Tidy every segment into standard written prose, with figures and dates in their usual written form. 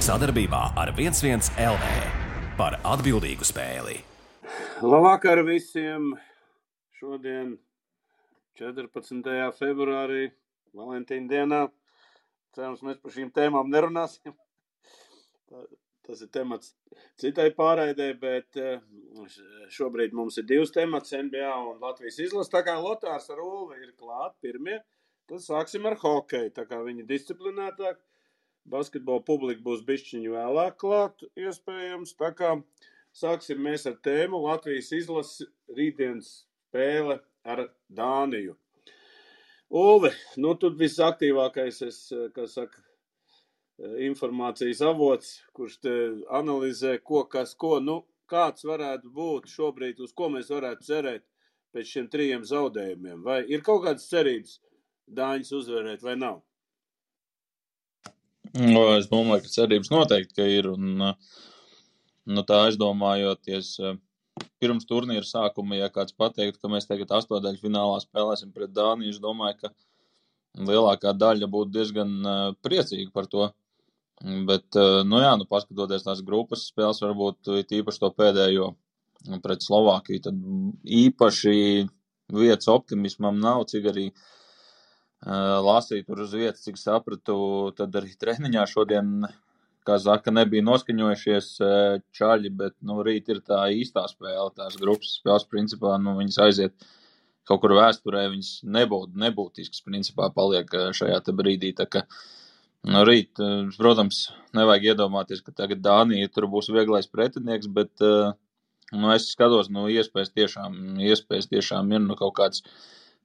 Sadarbībā ar 11 LV par atbildīgu spēli. Labvakar visiem! Šodien 14. februārī, Valentīna dienā. Cerams, mēs par šīm tēmām nerunāsim. Tas ir temats citai pārraidē, bet šobrīd mums ir divas temats, NBA un Latvijas izlase. Tā kā Lotārs ar Ulvi ir klāt pirmie, tad sāksim ar hokeju. Tā kā viņi disciplinētāk, basketbola publika būs bišķiņu vēlāk klāt, iespējams. Tā kā sāksim mēs ar tēmu Latvijas izlase rītdienas spēle ar Dāniju. Ulvi, tu visaktīvākais, informācijas avots, kurš te analizē, kāds varētu būt šobrīd, uz ko mēs varētu cerēt pēc šiem 3 zaudējumiem. Vai ir kaut kādas cerības Dāņus uzvarēt vai nav? Es domāju, ka cerības noteikti, ka ir. Un, tā aizdomājoties pirms turnīra sākuma, ja kāds pateiktu, ka mēs tagad 8. finālā spēlēsim pret Dāniju, es domāju, ka lielākā daļa būtu diezgan priecīga par to. Bet, paskatoties tās grupas spēles, varbūt īpaši to pēdējo pret Slovākiju, tad īpaši vietas optimismam nav, cik arī lasīju tur uz vietas, cik sapratu, tad arī treniņā šodien, kā saka, nebija noskaņojušies čaļi, bet, rīt ir tā īstā spēle, tās grupas spēles, principā, viņas aiziet kaut kur vēsturē, viņas nebūtiskas, principā, paliek šajā te brīdī, tā ka, rīt, protams, nevajag iedomāties, ka tagad Dānija tur būs vieglais pretinieks, bet, es skatos, iespējas tiešām ir, kaut kāds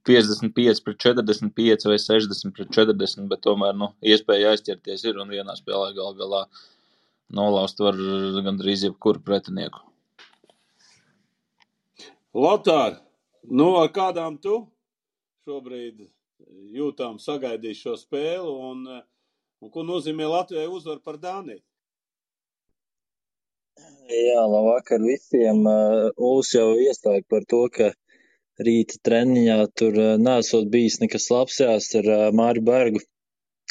55-45 vai 60-40, bet tomēr, iespēja aizķerties ir un vienā spēlē galā nolaust var gandrīz jebkuru pretinieku. Lotār, ar kādām tu šobrīd jūtām sagaidīju šo spēli un ko nozīmē Latvijai uzvar par Dāniju? Jā, labvakar visiem. Uls jau iestāja par to, ka rīta treniņā tur nesot bijis nekas labs ar Māri Bergu.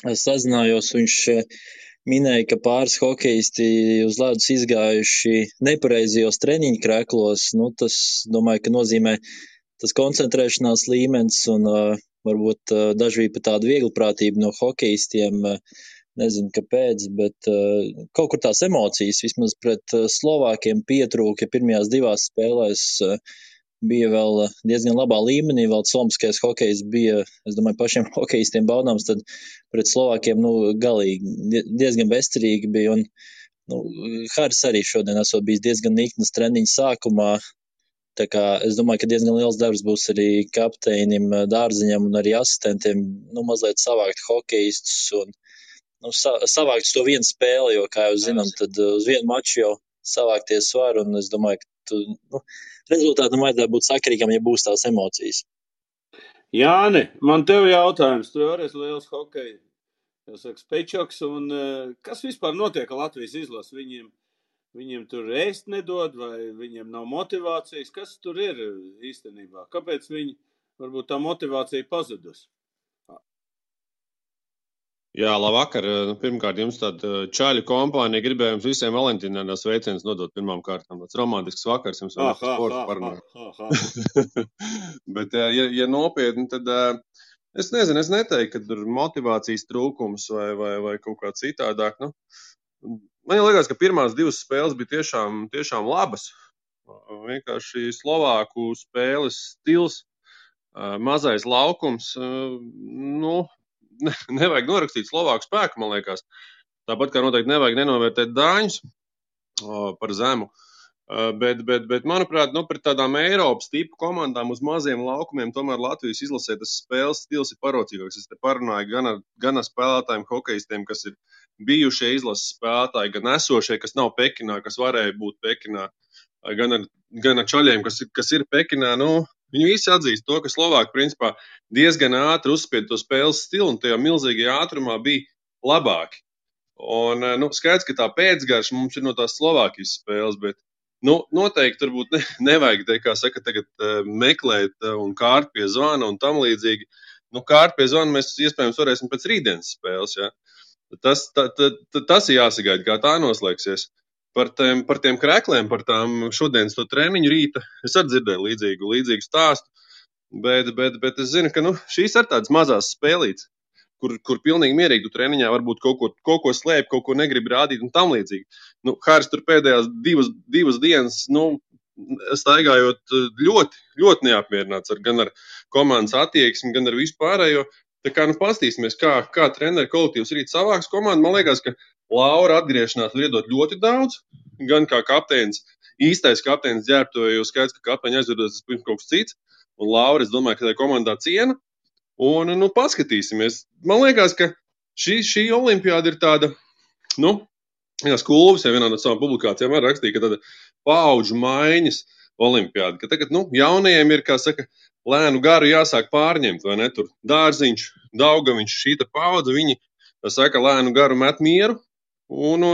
Es sazinājos, viņš minēja, ka pāris hokeisti uz ledus izgājuši nepareizajos treniņu kreklos. Tas, domāju, ka nozīmē tas koncentrēšanās līmenis un varbūt daži bija pat tāda vieglprātība no hokeistiem. Nezinu, kāpēc, bet kaut kur tās emocijas vismaz pret Slovākiem pietrūka. Pirmajās 2 spēlēs bija vēl diezgan labā līmenī, vēl somskais hokejs bija, es domāju, pašiem hokeistiem baudāms, tad pret Slovākiem, galīgi diezgan bezcerīgi bija, un Haris arī šodien esot bijis diezgan niknas treniņa sākumā, tā kā es domāju, ka diezgan liels darbs būs arī kapteinim, Dārziņam un arī asistentiem, mazliet savākt hokeistus un savākt to vienu spēli, jo, kā jau zinām, tad uz vienu maču jau savākties var, un es domāju, ka rezultātam vajadzētu būt sakarīgam, ja būs tās emocijas. Jāni, man tev jautājums, tu arī esi liels hokeja, spečoks, un kas vispār notiek ar Latvijas izlasi? Viņiem tur ēst nedod, vai viņiem nav motivācijas? Kas tur ir īstenībā? Kāpēc varbūt tā motivācija pazudus? Jā, labvakar. Pirmkārt, jums tāda čaļu kompānija gribēja jums visiem Valentīnā sveicienus nodot pirmām kārtām. Tāds romantisks vakars jums vēl sports parunāt. Bet, ja nopietni, tad es nezinu, es neteiktu, ka tur motivācijas trūkums vai kaut kā citādāk. Man liekas, ka pirmās 2 spēles bija tiešām labas. Vienkārši Slovāku spēles stils, mazais laukums, nevajag norakstīt Slovāku spēku, man liekas. Tāpat kā noteikti nevajag nenovērtēt Dāņus par zemu. Bet manuprāt, pret tādām Eiropas tipu komandām uz maziem laukumiem tomēr Latvijas izlasē tas spēles stils ir parocīgāks. Es te parunāju gan ar spēlētājiem, hokeistiem, kas ir bijušie izlases spēlētāji, gan esošie, kas nav Pekinā, kas varēja būt Pekinā, gan ar čaļiem, kas ir Pekinā. Viņi visi atzīst to, ka Slovāki principā diezgan ātri uzspied to spēles stilu un tajā milzīgajā ātrumā bija labāki. Un skaidrs, ka tā pēcgarša mums ir no tās Slovākijas spēles, bet noteikti turbūt nevajag, kā saka, tagad meklēt un kārt pie zvana un tam līdzīgi. Kārt pie zvana mēs iespējams varēsim pēc rītdienas spēles, ja. Tas ir jāsagaida, kā tā noslēgsies. Par tiem krekliem, par tām šodienas to treniņu rīta, es arī dzirdēju līdzīgu stāstu, bet es zinu, ka šīs ir tādas mazās spēlītes, kur pilnīgi mierīgi tu treniņā varbūt kaut ko slēp, kaut ko negrib rādīt un tam līdzīgi. Haris tur pēdējās divas dienas, staigājot ļoti, ļoti neapmierināts gan ar komandas attieksmi, gan ar vispārējo. Tā kā pastīsimies, kā treneru kolektīvs rīt savāks komandu. Man liekas, ka Laura atgriešanās var iedot ļoti daudz, gan kā kapteinis, īstais kapteinis ģērbtuvē, jo skaidrs, ka kapteiņa aizvedos tas pirms kaut kas cits. Un Laura, es domāju, ka tā komandā ciena. Un, paskatīsimies. Man liekas, ka šī olimpiāda ir tāda, Kulvis jau vienā no savām publikācijām arī rakstīja, ka tāda paudžu maiņas olimpiāda, ka tagad, jaunajiem ir, kā saka, lēnu garu jāsāk pārņemt, vai ne? Tur Dārziņš, Daugaviņš, šīta paudze, viņi, tā saka, lēnu garu met mieru, un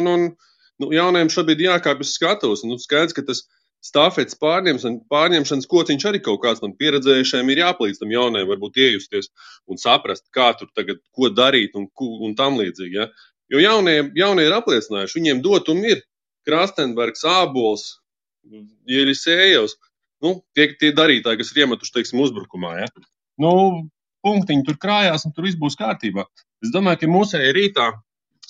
jaunajiem šobrīd jākāpj uz skatuves. Skaidrs, ka tas stafetes pārņemšanas kociņš arī kaut kāds tam pieredzējušajiem ir jāpalīdz tam jaunajiem varbūt iejusties un saprast, kā tur tagad, ko darīt un tam līdzīgi, ja? Jo jaunie ir apliecinājuši, viņiem dotumi ir Krastenbergs, Ābols, Jelisejevs, tie darītāji, kas ir iemetuši, teiksim, uzbrukumā, ja? Punktiņi tur krājās un tur viss būs kārtībā. Es domāju, ka mūsēji rītā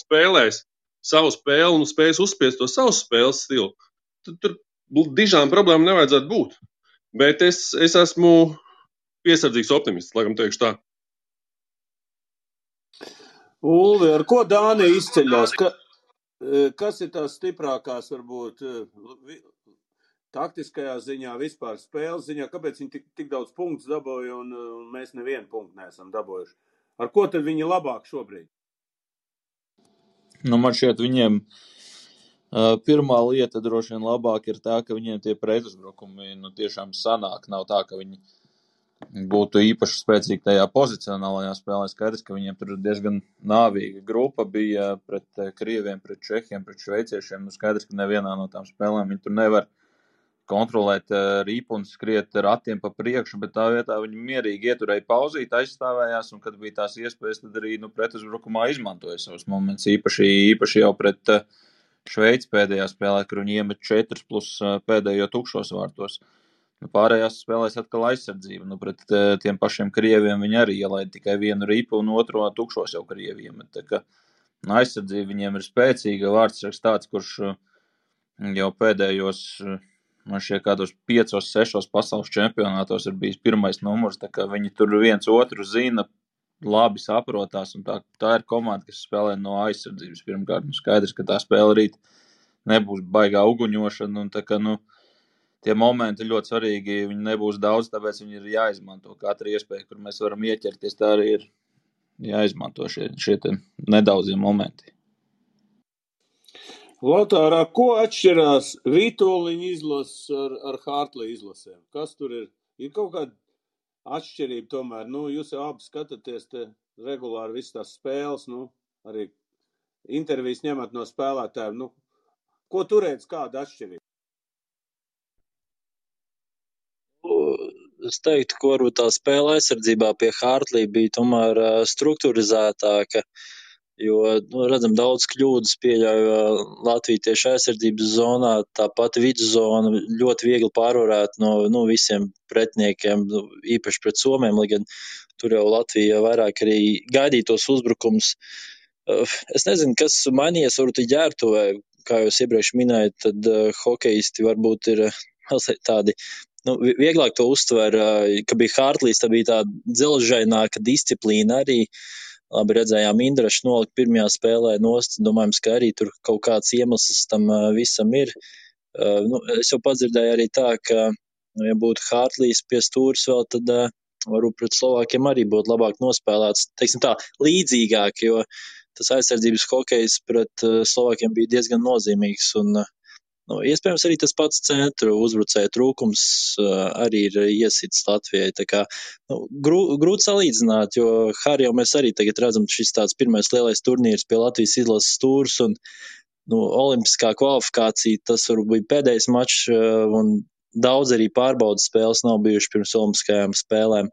spēlēs savu spēli un spēs uzspiest to savu spēles stilu. Tur dižām problēmu nevajadzētu būt. Bet es esmu piesardzīgs optimists, laikam teikšu tā. Ulvi, ar ko Dānija izceļās? Kas ir tās stiprākās, varbūt, taktiskajā ziņā, vispār spēles ziņā? Kāpēc viņi tik daudz punktus dabūja un mēs nevienu punktu neesam dabūjuši? Ar ko tad viņi labāk šobrīd? Man šķiet, viņiem pirmā lieta droši vien labāk ir tā, ka viņiem tie pretuzbrukumi tiešām sanāk. Nav tā, ka viņi būtu īpaši spēcīgi tajā pozicionālajā spēlē. Skaidrs, ka viņiem tur diezgan nāvīga grupa bija pret Krieviem, pret Čehiem, pret šveiciešiem. Skaidrs, ka nevienā no tām spēlēm viņi tur nevar kontrolēt ripu un skriet ratiem pa priekšu, bet tā vietā viņi mierīgi ieturēja pauzīt, aizstāvējās, un kad bija tās iespējas, tad arī pretuzbrukumā izmantoja savus momentus. Īpaši jau pret Šveici pēdējā spēlē, kur viņi iemet 4 plus pēdējo tukšos vārtos. Pārējās spēlēs atkal aizsardzība. Pret tiem pašiem Krieviem viņi arī ielaida tikai vienu ripu un otro tukšos jau Krieviem. Tā kā aizsardzība viņiem ir spēcīga. Vārdsargs tāds, kurš jau pēdējos, man šķiet, kādos 5-6 pasaules čempionātos ir bijis pirmais numurs. Tā kā viņi tur viens otru zina, labi saprotās. Un tā ir komanda, kas spēlē no aizsardzības pirmkārt. Skaidrs, ka tā spēle rīt nebūs baigā uguņošana. Un tā kā, tie momenti ļoti svarīgi, viņi nebūs daudz, tāpēc viņi ir jāizmanto. Katra iespēja, kur mēs varam ieķerties, tā arī ir jāizmanto šie nedaudzie momenti. Lotārā, ko atšķirās Vitoļiņa izlases ar Hartlija izlasēm? Kas tur ir? Ir kaut kāda atšķirība tomēr? Jūs jau abi skatāties te regulāri visas tās spēles, arī intervijas ņemat no spēlētājiem. Ko tur redz, kāda atšķirība? Es teiktu, ka varbūt tā spēle aizsardzībā pie Hartlija bija tomēr strukturizētāka, jo, redzam, daudz kļūdas pieļauj Latvija tieši aizsardzības zonā, tāpat vidzona ļoti viegli pārvarēt no visiem pretiniekiem, īpaši pret Somiem, lai gan tur jau Latvija vairāk arī gaidīja tos uzbrukums. Es nezinu, kas mainījies varbūt ģērbtuvē, kā jūs iepriekš minējat, tad hokejisti varbūt ir mazliet tādi, vieglāk to uztver, ka bija Hartlijs, tā bija tāda dzelžaināka disciplīna arī. Labi redzējām Indrašu nolikt pirmajā spēlē nost, domājams, ka arī tur kaut kāds iemesls tam visam ir. Es jau padzirdēju arī tā, ka, ja būtu Hartlijs pie stūris vēl, tad varbūt pret Slovākiem arī būtu labāk nospēlēts, teiksim tā, līdzīgāk, jo tas aizsardzības hokejs pret Slovākiem bija diezgan nozīmīgs un iespējams arī tas pats centru uzbrucēju trūkums arī ir iesits Latvijai. Tā kā grūti salīdzināt, jo Harri jau mēs arī tagad redzam, šis tāds pirmais lielais turnīrs pie Latvijas izlases stūrs un olimpiskā kvalifikācija, tas varbūt bija pēdējais mačs un daudz arī pārbaudas spēles nav bijuši pirms olimpiskajām spēlēm.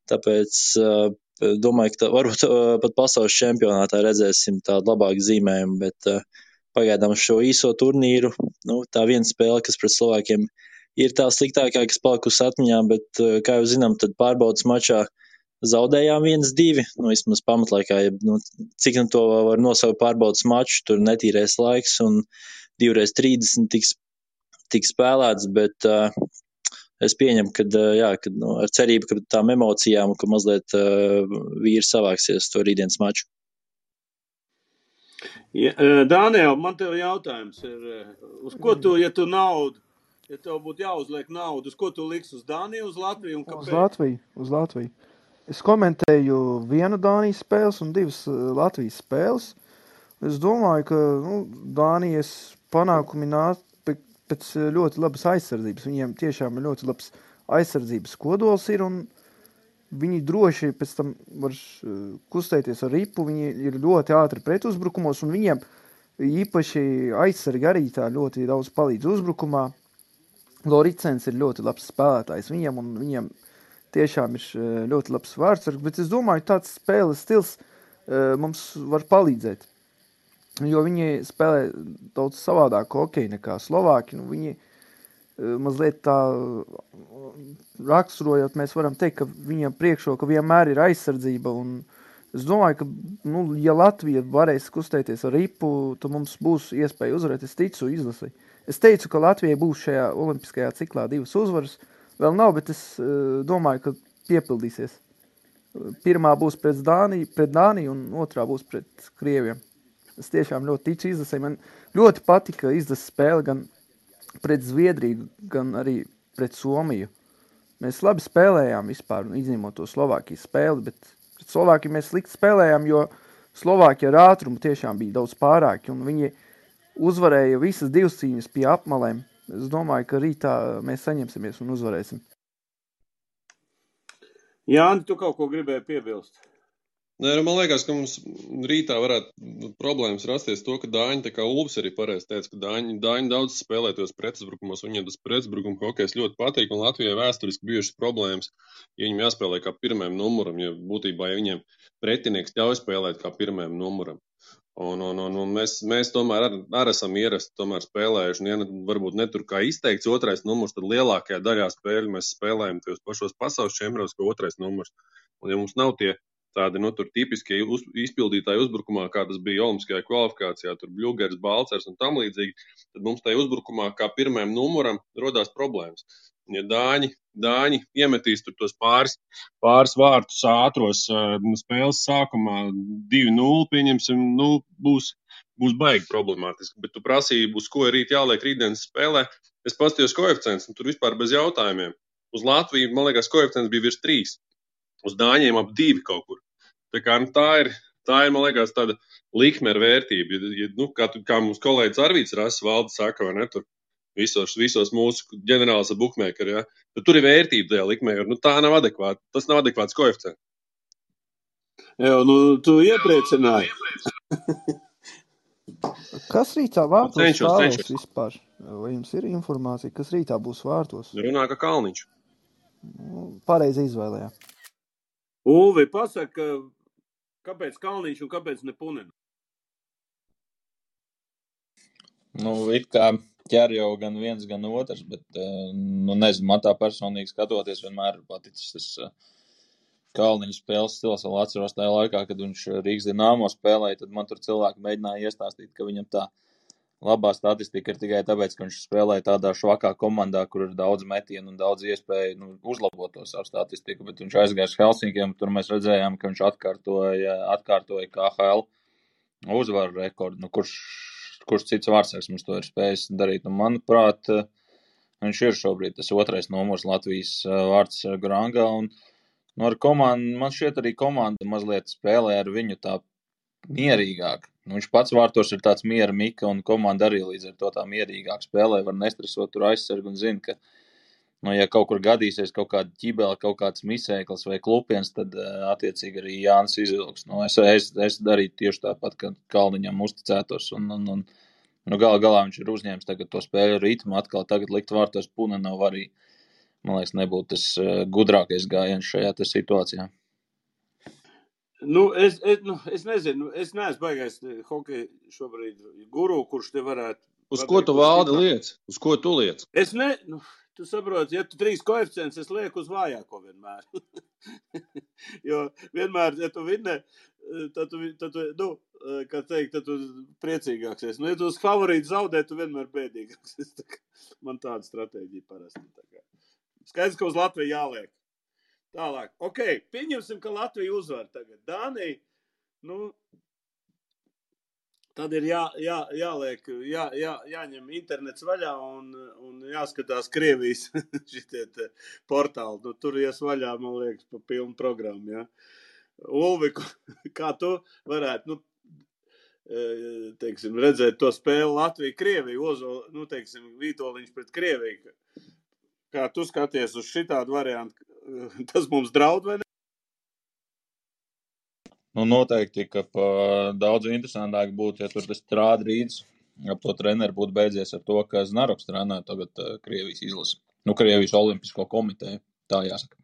Tāpēc domāju, ka varbūt pat pasaules čempionātā redzēsim tādu labāku zīmējumu, bet pagaidām šo īso turnīru, tā viena spēle, kas pret Slovākiem ir tā sliktākā, kas palikusi atmiņā, bet, kā jau zinām, tad pārbaudas mačā zaudējām 1-2, vismaz pamatlaikā, cik to var nosaukt pārbaudas maču, tur netīrais laiks un 2x30 tiks spēlēts, bet es pieņemu, ka ar cerību, ka tām emocijām, ka mazliet vīri savāksies to rītdienas maču. Ja, Dāniel, man tev jautājums ir, uz ko tu, ja tev būtu jāuzliek naudu, uz ko tu liks, uz Dāniju, uz Latviju un kāpēc? Uz Latviju. Es komentēju vienu Dānijas spēles un 2 Latvijas spēles. Es domāju, ka Dānijas panākumi nāk pēc ļoti labas aizsardzības. Viņiem tiešām ir ļoti labs aizsardzības kodols ir, un viņi droši pēc tam var kustēties ar ripu. Viņi ir ļoti ātri pretuzbrukumos, un viņiem īpaši aizsargi arī tā ļoti daudz palīdz uzbrukumā. Loricens ir ļoti labs spēlētājs viņiem, un viņiem tiešām ir ļoti labs vārdsargs, bet es domāju, tāds spēles stils mums var palīdzēt, jo viņi spēlē daudz savādāk hokeju nekā Slovāki. Viņi mazliet tā raksturojot, mēs varam teikt, ka viņiem priekšroka vienmēr ir aizsardzība, un es domāju, ka, ja Latvija varēs kustēties ar ripu, tad mums būs iespēja uzvarēt. Es ticu izlasī. Es teicu, ka Latvijai būs šajā olimpiskajā ciklā 2 uzvaras. Vēl nav, bet es domāju, ka piepildīsies. Pirmā būs pret Dāniju un otrā būs pret Krieviem. Es tiešām ļoti ticu izlasē. Man ļoti patika izlases spēle gan pret Zviedriju, gan arī pret Somiju. Mēs labi spēlējām vispār, izņemot to Slovākijas spēli, bet pret Slovākiju mēs slikti spēlējām, jo Slovākija ar ātrumu tiešām bija daudz pārāki, un viņi uzvarēja visas 2 cīņas pie apmalēm. Es domāju, ka rītā mēs saņemsimies un uzvarēsim. Jāni, tu kaut ko gribēji piebilst? Nē, man liekas, ka mums rītā varētu problēmas rasties to, ka Dāņi, tā kā Ulfs arī pareizi teica, ka Dāņi daudz spēlē tos pretuzbrukumos, viņiem tas pretuzbrukuma hokejs ļoti patīk, un Latvijai vēsturiski bijušas problēmas, ja viņiem jāspēlē kā pirmajam numuram, ja būtībā, ja viņiem pretinieks ļauj spēlēt kā pirmajam numuram. Un mēs tomēr arī esam ierasti tomēr spēlējuši, un ja varbūt netur kā izteikts otrais numurs, tad lielākajā daļā spēļu mēs spēlējam tos pašos pasaules čempionātos, kā otrais numurs. Un ja mums nav tie tādi, tur tipiskie izpildītāji uzbrukumā, kā tas bija olimpiskajā kvalifikācijā, tur Bļugers, Balcers un tam līdzīgi, tad mums tajā uzbrukumā kā pirmajam numuram rodās problēmas. Un ja Dāņi iemetīs tur tos pāris vārtus ātros spēles sākumā 2-0, pieņemsim, būs baigi problemātiski. Bet tu prasīji, uz ko ir jāliek rītdienas spēlē. Es paskatījos koeficients, un tur vispār bez jautājumiem. Uz Latviju, man liekas, koeficients bija virs 3. Uz Dāņiem ap 2 kaut kur. Tā kā tā ir, man liekas, tāda likme ar vērtību. Kā mums kolēģis Arvīts Rasis Valde saka, vai ne, tur visos mūsu ģenerālis ar bukmēkeri, ja, tad tur ir vērtība tajā likmē, jo tā nav adekvāta. Tas nav adekvāts koeficients. Jā, tu iepriecināji. Kas rītā vārtos stāvēs vispār? Vai jums ir informācija, kas rītā būs vārtos? Runā, ka Kalniņš. Pareizi izvēlējā. Ulvi, pasaka, kāpēc Kalniņš un kāpēc ne Punina? It kā ķer jau gan viens, gan otrs, bet, nezinu, man tā personīgi skatoties vienmēr paticis tas Kalniņa spēles stils. Vēl atceros tajā laikā, kad viņš Rīgas Dinamo spēlēja, tad man tur cilvēki mēģināja iestāstīt, ka viņam tā labā statistika ir tikai tāpēc, ka viņš spēlēja tādā švakā komandā, kur ir daudz metienu un daudz iespēju uzlabot to savu statistiku, bet viņš aizgāja uz Helsinkiem, tur mēs redzējām, ka viņš atkārtoja KHL uzvaru rekordu. Kurš cits vārdsargs mums to ir spējis darīt? Manuprāt, viņš ir šobrīd tas otrais numurs Latvijas vārdsargu rangā, un ar komandu, man šķiet arī komanda mazliet spēlē ar viņu tā mierīgāk. Viņš pats vārtos ir tāds miera mika, un komanda arī līdz ar to tā mierīgāk spēlē, var nestresot tur aizsargu un zina, ka, ja kaut kur gadīsies kaut kāda ķibela, kaut kāds misēklis vai klupiens, tad attiecīgi arī Jānis izvilks. Es darītu tieši tāpat, ka Kalniņam uzticētos, un galā viņš ir uzņēmis tagad to spēļu ritmu, atkal tagad likt vārtos Punenovs arī, man liekas, nebūtu tas gudrākais gājiens šajā situācijā. Es nezinu, es neesmu baigais hokeja šobrīd guru, kurš te varētu. Uz ko tu valdi liec? Uz ko tu liec? Es ne, tu saproti, ja tu 3 koeficients, es lieku uz vājāko vienmēr. Jo vienmēr, ja tu vinne, tad tu, kā teikt, tad tu priecīgāks esi. Ja tu uz favorītu zaudē, tu vienmēr bēdīgāks esi. Man tāda stratēģija parasti. Skaidrs, ka uz Latviju jāliek. Tālāk. Ok, pieņemsim, ka Latvija uzvar tagad. Dānija, tad ir jāliek, jāņem internets vaļā un jāskatās Krievijas šitie portāli. Tur ies vaļā, man liekas, pa pilnu programmu, ja. Ulvi, kā tu varētu, teiksim, redzēt to spēli Latvija-Krievija, teiksim, Vītoliņš pret Krieviju. Kā tu skaties uz šitādu variantu, tas mums draud vai ne? Noteikti, ka daudz interesantāk būtu, ja tur tas trādrīds ap to treneru būtu beidzies ar to, ka Znaroks trenē tagad Krievijas izlasi. Krievijas olimpisko komiteju, tā jāsaka.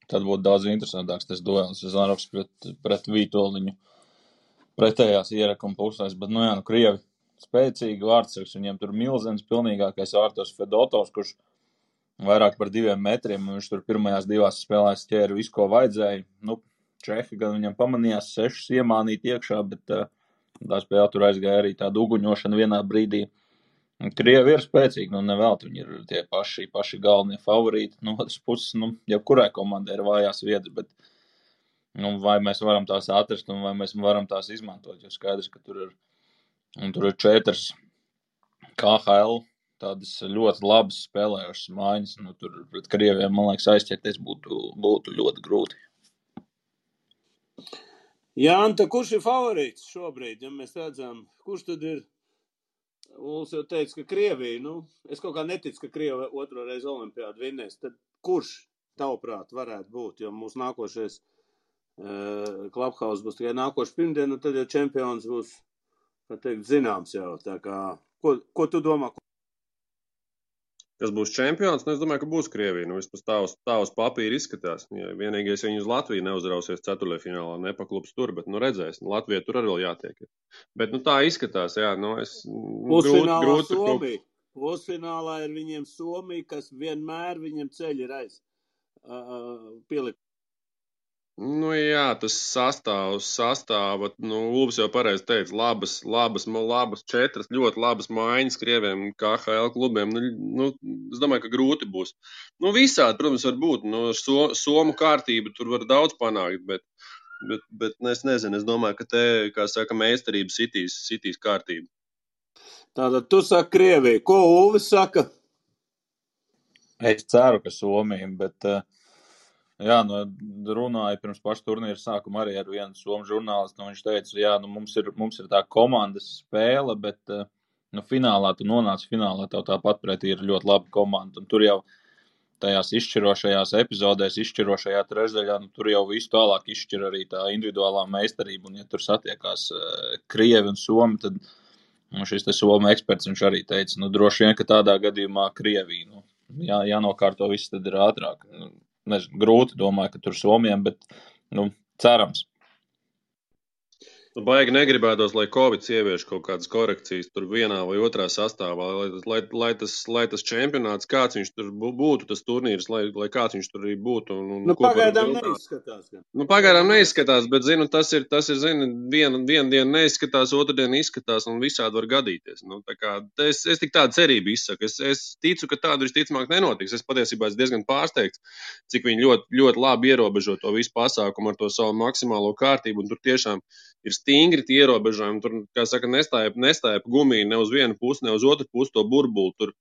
Tad būtu daudz interesantāks tas duels Znaroks pret Vītoliņu pretējās ierakuma pusēs, bet, Krievi spēcīgi vārdsargs, viņiem tur milzens pilnīgākais vārtos Fedotovs, kurš vairāk par 2 metriem, un viņš tur pirmajās 2 spēlēs ķēra visu, ko vajadzēja. Čehi gan viņam pamanījās 6 iemānīt iekšā, bet tā spēle tur aizgāja arī tāda uguņošana vienā brīdī. Krievi ir spēcīgi, nevelti viņi ir tie paši galvenie favorīti. No otras puses, jebkurai komandai ir vājās vietas, bet vai mēs varam tās atrast un vai mēs varam tās izmantot, jo skaidrs, ka tur ir 4 KHL tādas ļoti labas spēlējušas mājas. Tur pret Krieviem, man liekas, aizķerties būtu ļoti grūti. Jānta, kurš ir favorīts šobrīd, ja mēs redzam? Kurš tad ir? Uls jau teica, ka Krievija, es kaut kā neticu, ka Krieva 2. reizi olimpiādu vinnēs. Tad kurš, tavuprāt, varētu būt? Jo mūsu nākošais Clubhouse būs tikai nākošu pirmdienu, tad jau čempions būs, kā teikt, zināms jau. Tā kā, ko tu domā? Kas būs čempions? Es domāju, ka būs Krievija. Vispār tā uz papīra izskatās. Ja vienīgais, ja viņi uz Latviju neuzrausies ceturtdaļfinālā, nepaklups tur, bet redzēs. Latvija tur arī vēl jātiek. Bet tā izskatās, jā. Pusfinālā Somija. Pusfinālā ir viņiem Somija, kas vienmēr viņiem ceļ ir pielikt. Jā, tas sastāva, Ulbs jau pareizi teica, labas 4 ļoti labas maiņas Krieviem KHL klubiem. Es domāju, ka grūti būs. Visādi, protams, var būt. Somu kārtību tur var daudz panākt, bet es nezinu, es domāju, ka te, kā saka, meistarība sitīs kārtību. Tātad tu saki Krieviju. Ko Ulvis saka? Es ceru, ka Somija, bet... runāja pirms paša turnīra sākuma arī ar vienu somu žurnālistu, viņš teica, mums ir tā komandas spēle, bet finālā tu nonāc finālā, tev tāpat pretī ir ļoti laba komanda, un tur jau tajās izšķirošajās epizodēs, izšķirošajā trešdaļā, tur jau visu tālāk izšķir arī tā individuālā meistarība, un ja tur satiekās Krievi un Somi, tad šis te Somu eksperts, viņš arī teica, droši vien, ka tādā gadījumā Krievija, jānokārto viss tad ir ātrāk. Nezinu, grūti domāju, ka tur Somijam, bet, cerams. Baigi negribētos, lai Covid ievieš kaut kādas korekcijas tur vienā vai otrā sastāvā, lai tas čempionāts, kāds viņš tur būtu, tas turnīrs, lai kāds viņš tur arī būtu. Pagaidām neizskatās. Pagaidām neizskatās, bet, tas ir vienu dienu neizskatās, otru dienu izskatās un visādi var gadīties. Es tik tādu cerību izsaku. Es ticu, ka tādu visticamāk nenotiks. Es patiesībā esmu diezgan pārsteigts, cik viņi ļoti, ļoti labi ierobežo to visu pasākumu ar to savu maksimālo kārtību, un tur tiešām ir stingri tie ierobežojumi. Tur, kā saka, nestāja gumija ne uz vienu pusi, ne uz otru pusi to burbuli. Tur,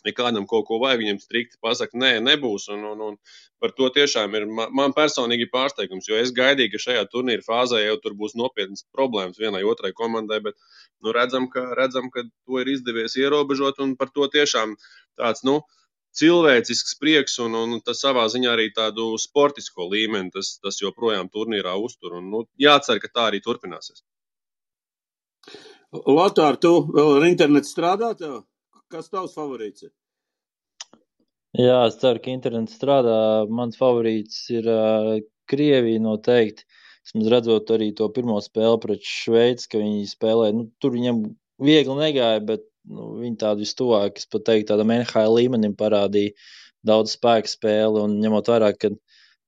ja kādam kaut ko vajag, viņam strikti pasaka, nē, nebūs. Un par to tiešām ir man personīgi pārsteigums, jo es gaidīju, ka šajā turnīra fāzē jau tur būs nopietnas problēmas vienai otrai komandai, bet redzam, ka to ir izdevies ierobežot, un par to tiešām tāds, cilvēcisks prieks un tas savā ziņā arī tādu sportisko līmeni, tas joprojām turnīrā uztur. Un, jācer, ka tā arī turpināsies. Lotār, tu vēl ar internetu strādā tev? Kas tavs favorīts ir? Jā, es ceru, ka internets strādā. Mans favorīts ir Krievija noteikti. Vismaz redzot arī to pirmo spēli pret Šveici, ka viņi spēlē, tur viņam viegli negāja, bet viņi tādu vistuvāk, es pat teiktu, tādam NHL līmenim parādīja daudz spēku spēli, un ņemot vērā, ka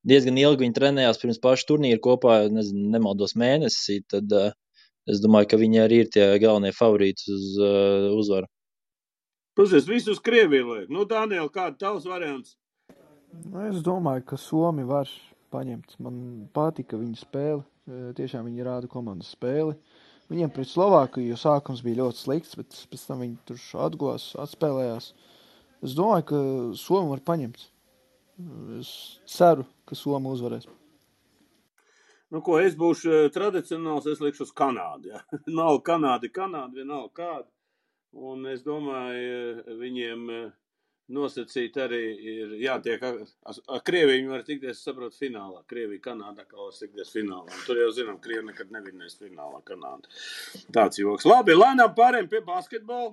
diezgan ilgi viņi trenējās pirms pašu turnīru kopā, nemaldos mēnesi, tad es domāju, ka viņi arī ir tie galvenie favorīti uz uzvaru. Pusies, visu uz Krieviju liek. Dāniel, kāda tavs variants? Es domāju, ka Somi var paņemt. Man patika viņa spēle. Tiešām viņi rāda komandas spēli. Viņiem pret Slovākiju sākums bija ļoti slikts, bet pēc tam viņi tur atgulās, atspēlējās. Es domāju, ka Somi var paņemt. Es ceru, ka Somi uzvarēs. Ko es būšu tradicionāls, es likšu uz Kanādu. Ja? Nav Kanāda, vienalga kāda. Un es domāju, viņiem nosacīt arī ir jātiek ar Krieviju. Viņi var tikties, saprot, finālā. Krievija, Kanāda, kā var tikties finālā. Un tur jau zinām, Krievi nekad nevinēs finālā Kanāda. Tāds joks. Labi, lēnām pārējiem pie basketbola.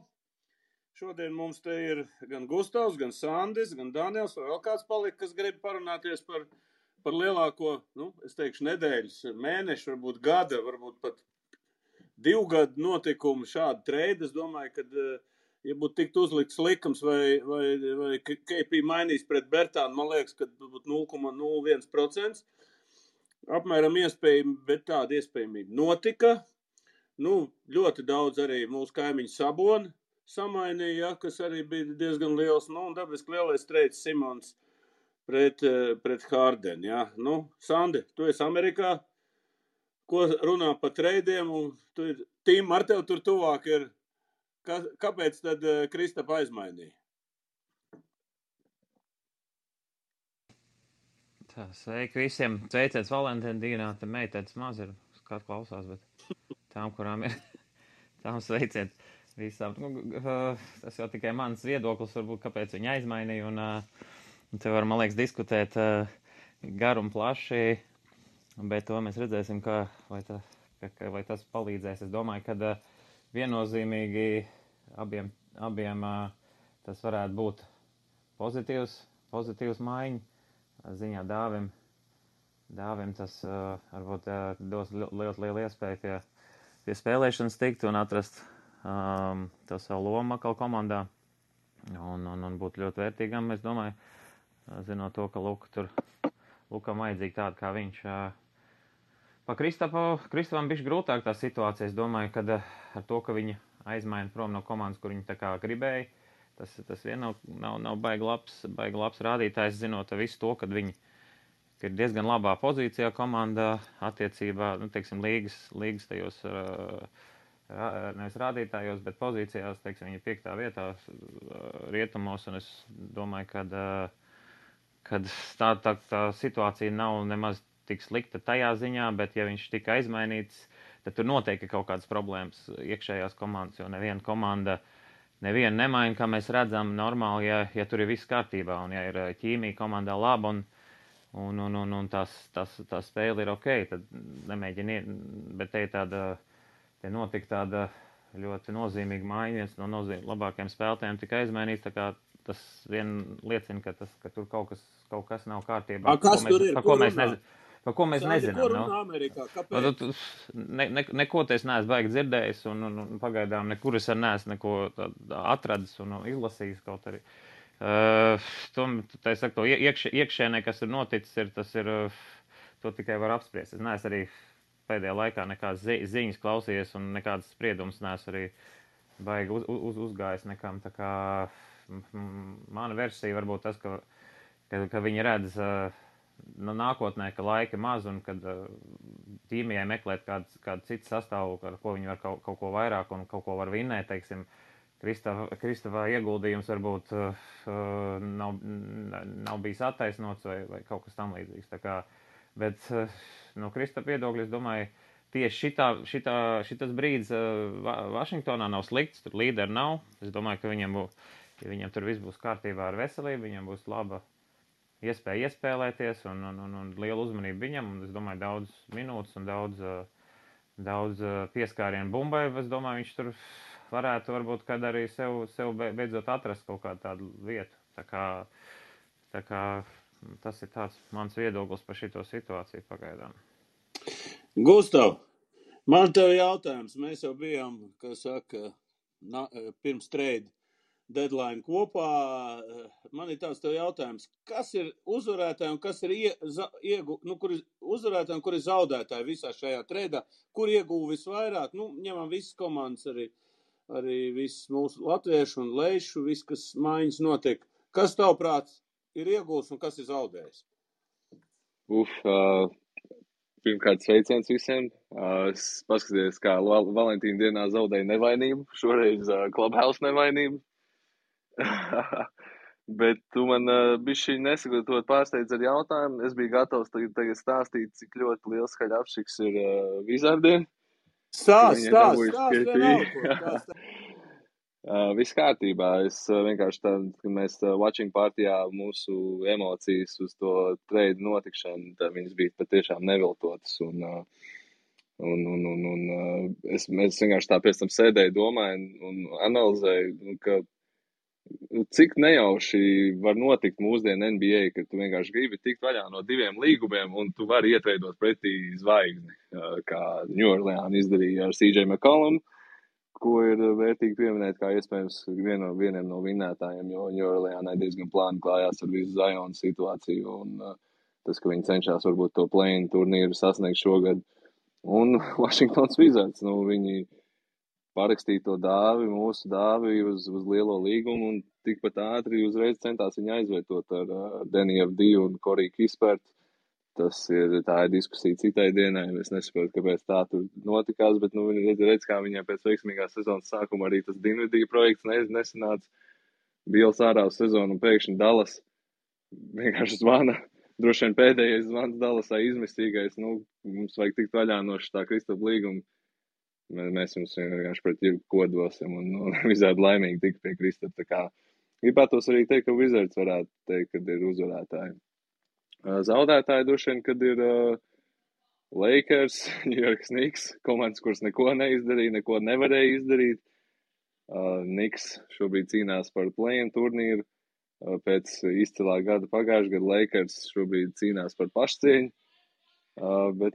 Šodien mums te ir gan Gustavs, gan Sandis, gan Daniels, vai vēl kāds palika, kas grib parunāties par lielāko, es teikšu, nedēļas, mēnešu, varbūt gada, varbūt pat 2 gadu notikumu šādu treidu. Es domāju, ka, ja būtu tikt uzlikts likums vai KP mainīs pret Bertānu, man liekas, ka būtu 0,01%. Apmēram iespējami, bet tāda iespējamība notika. Ļoti daudz arī mūsu kaimiņu Saboni samainīja, kas arī bija diezgan liels. Un dabiski lielais treids Simons pret Hārdeni. Ja? Sandi, tu esi Amerikā. Ko runā par treidiem, un Tīm ar tev tur tuvāk ir. Kāpēc tad Kristapa aizmainīja? Sveiki visiem. Sveiciens Valentīna dienā. Te meitētas maz ir, kāds klausās, bet tām, kurām ir, tām sveiciens visām. Tas jau tikai mans viedoklis, varbūt, kāpēc viņi aizmainīja, un te var, man liekas, diskutēt garu un plaši. Bet to mēs redzēsim, vai tas palīdzēs. Es domāju, ka viennozīmīgi abiem tas varētu būt pozitīvs maiņa ziņā Dāvim tas varbūt dos ļoti lielu iespēju pie spēlēšanas tikt un atrast to savu lomu atkal komandā un būt ļoti vērtīgam. Es domāju, zinot to, ka Lukam vajadzīgi tādu kā viņš. Pa Kristapam bišķi grūtāk tā situācija. Es domāju, ka ar to, ka viņi aizmaina prom no komandas, kur viņi tā kā gribēja, tas vien nav baigi labs rādītājs, zinot visu to, kad viņi ir diezgan labā pozīcijā komandā attiecībā, teiksim, līgas tajos, nevis rādītājos, bet pozīcijās, teiksim, viņi ir 5. vietā rietumos, un es domāju, kad tā situācija nav nemaz tik slikta tajā ziņā, bet ja viņš tika aizmainīts, tad tur noteikti kaut kādas problēmas iekšējās komandas, jo neviena komanda nemaina, kā mēs redzam, normāli, ja tur ir viss kārtībā, un ja ir ķīmija komandā laba, un tā spēle ir ok, tad nemēģini, bet te notika tāda ļoti nozīmīga maiņa, viens no labākajiem spēlētājiem tika aizmainīts, tā kā tas vien liecina, ka tur kaut kas nav kārtībā. Kas tur ir? Par ko mēs nezinām. Ko runā Amerikā? Kāpēc? Neko te es neesmu baigi dzirdējis, un pagaidām nekur es neesmu neko atradis un izlasījis kaut arī. Tā es saku, to iekšēnē, kas ir noticis, to tikai var apspriest. Es neesmu arī pēdējā laikā nekādas ziņas klausījies un nekādas spriedumus neesmu arī baigi uzgājis nekam. Tā kā mana versija varbūt tas, ka viņi redz nākotnē, ka laika maz un kad tīmijai meklēt kādu citu sastāvu, ar ko viņi var kaut ko vairāk un kaut ko var vinnēt, teiksim, Kristapā ieguldījums varbūt nav bijis attaisnots vai kaut kas tam līdzīgs. Tā kā, bet no Kristapa viedokļa, es domāju, tieši šitas brīdis Vašingtonā nav slikts, tur līderi nav. Es domāju, ka ja viņam tur viss būs kārtībā ar veselību, viņam būs laba iespēja iespēlēties un lielu uzmanību viņam, un es domāju, daudz minūtes un daudz pieskārienu bumbai. Es domāju, viņš tur varētu varbūt kad arī sev beidzot atrast kaut kādu tādu vietu. Tā kā tas ir tāds mans viedoklis par šito situāciju pagaidām. Gustav, man tev jautājums. Mēs jau bijām, kā saka, pirms trade deadline kopā. Man ir tāds tev jautājums. Kas ir uzvarētāji un kas ir kur ir uzvarētāji un kur ir zaudētāji visā šajā tradeā? Kur ieguva visvairāk? Ņemam visas komandas arī visas mūsu latviešu un leišu, viss, kas maiņas notiek. Kas tavuprāt ir iegūs un kas ir zaudējis? Pirmkārt, sveiciens visiem. Es paskatījos, kā Valentīna dienā zaudēja nevainību. Šoreiz Clubhouse nevainību. Bet tu man bišķi nesagatavot pārsteidz ar jautājumu. Es biju gatavs tagad stāstīt, cik ļoti liels skaļapšiks ir Wizardiem. Stāst vienalga. Viss kārtībā. Es vienkārši kad mēs watching partijā mūsu emocijas uz to trade notikšanu, tad viņas bija patiešām neviltotas. Es vienkārši tā pēc tam sēdēju, domāju un analizēju, ka cik nejauši var notikt mūsdienu NBA, ka tu vienkārši gribi tikt vaļā no 2 līgumiem un tu vari ietveidot pretī zvaigzni, kā New Orleans izdarīja ar CJ McCollum, ko ir vērtīgi pieminēt kā iespējams vieniem no vinnētājiem, jo New Orleansai diezgan plāni klājās ar visu Zionu situāciju un tas, ka viņi cenšas varbūt to play-in turnīru sasniegt šogad. Un Washingtons Wizards, viņi parakstīja to mūsu dāvi uz lielo līgumu un tikpat ātri uzreiz centās viņu aizvietot ar Danny Avdiju un Corey Kispertu. Tā ir diskusija citai dienai. Es nesaprotu, kāpēc tā tur notikās, bet redz, kā viņai pēc veiksmīgās sezonas sākuma arī tas Dinvidija projekts nesanāca. Bils ārā uz sezonu un pēkšņi Dallas vienkārši zvana. Droši vien pēdējais zvans Dallasā izmistīgais. Mums vajag tikt vaļā no šitā Kristapa līguma. Mēs jums vienkārši pret jebko dosim un visādi laimīgi tik pie Kristapa. Gribētos arī teikt, ka Wizards varētu teikt, kad ir uzvarētāji. Zaudētāji droši vien, kad ir Lakers, New York Knicks, komandas, kuras neko neizdarīja, neko nevarēja izdarīt. Knicks šobrīd cīnās par play-in turnīru pēc izcilā gada pagājušā gada. Lakers šobrīd cīnās par pašcieņu, bet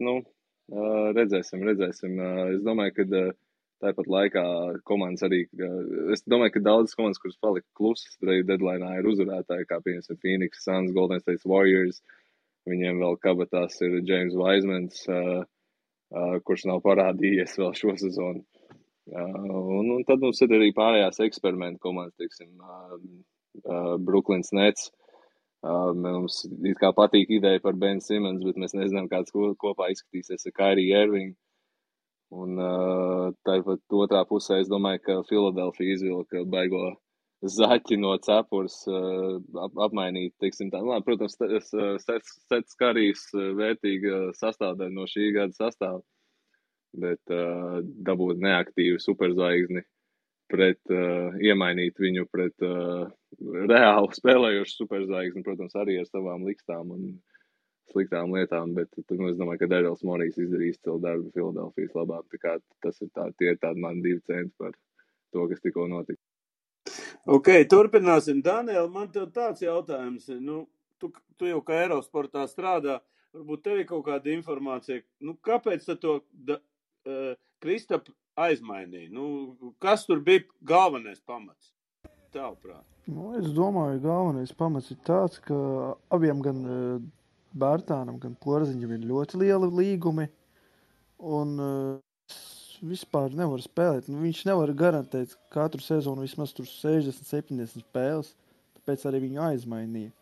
redzēsim. Es domāju, ka tāpat laikā komandas arī, es domāju, ka daudzas komandas, kuras palika klusas deadline'ā, ir uzvarētāji, kā piemēram Phoenix Suns, Golden State Warriors. Viņiem vēl kabatās ir James Wisemans, kurš nav parādījies vēl šo sezonu. Un tad mums ir arī pārējās eksperimentu komandas, teiksim, Brooklyns Nets. Mums it kā patīk ideja par Ben Simmons, bet mēs nezinām, kāds kopā izskatīsies ar Kyrie Irving. Un tāpat otrā pusē es domāju, ka Philadelphia izvilka baigo zaķi no cepures apmainīt, teiksim tā. Protams, Sets Karijs vērtīga sastāvdaļa no šī gada sastāva, bet dabūt neaktīvu superzvaigzni iemainīt viņu pret reāli spēlējošu superzvaigzni, protams, arī ar savām likstām un sliktām lietām, bet es domāju, ka Darrells Morijs izdarīs izcilu darbu Filadelfijas labā. Tie ir tādi mani 2 centi par to, kas tikko notika. Ok, turpināsim. Daniel, man tev tāds jautājums. Tu jau kā Eirosportā strādā, varbūt tev ir kaut kāda informācija. Kāpēc to Kristapu aizmainīja? Kas tur bija galvenais pamats? Tavuprāt. Es domāju, galvenais pamats ir tāds, ka abiem gan Bērtānam, gan Porziņam ir ļoti lieli līgumi, un vispār nevar spēlēt. Viņš nevar garantēt katru sezonu vismaz tur 60-70 spēles, tāpēc arī viņu aizmainīja.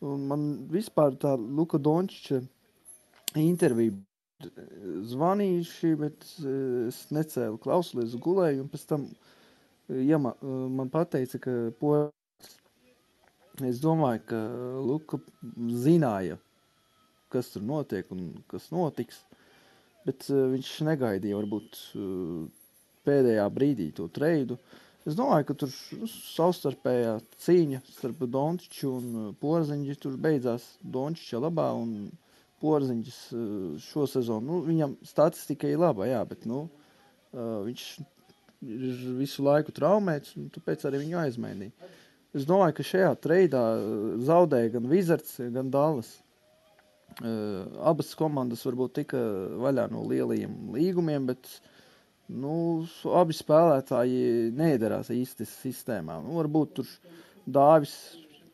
Un man vispār tā Luka Dončiča intervija zvanījuši, bet es necēlu klausulies, gulēju, un pēc tam man pateica, ka es domāju, ka Luka zināja, kas tur notiek un kas notiks. Bet viņš negaidīja varbūt pēdējā brīdī to treidu. Es domāju, ka tur savstarpējā cīņa starp Dončiču un Porziņu tur beidzās Dončiča labā un Porziņš šo sezonu. Viņam statistika ir laba, jā, bet viņš ir visu laiku traumēts un tāpēc arī viņu aizmainīja. Es domāju, ka šajā treidā zaudēja gan Wizards, gan Dallas. Abas komandas varbūt tika vaļā no lielajiem līgumiem, bet abi spēlētāji neiedarās īsti sistēmā. Varbūt tur Dāvis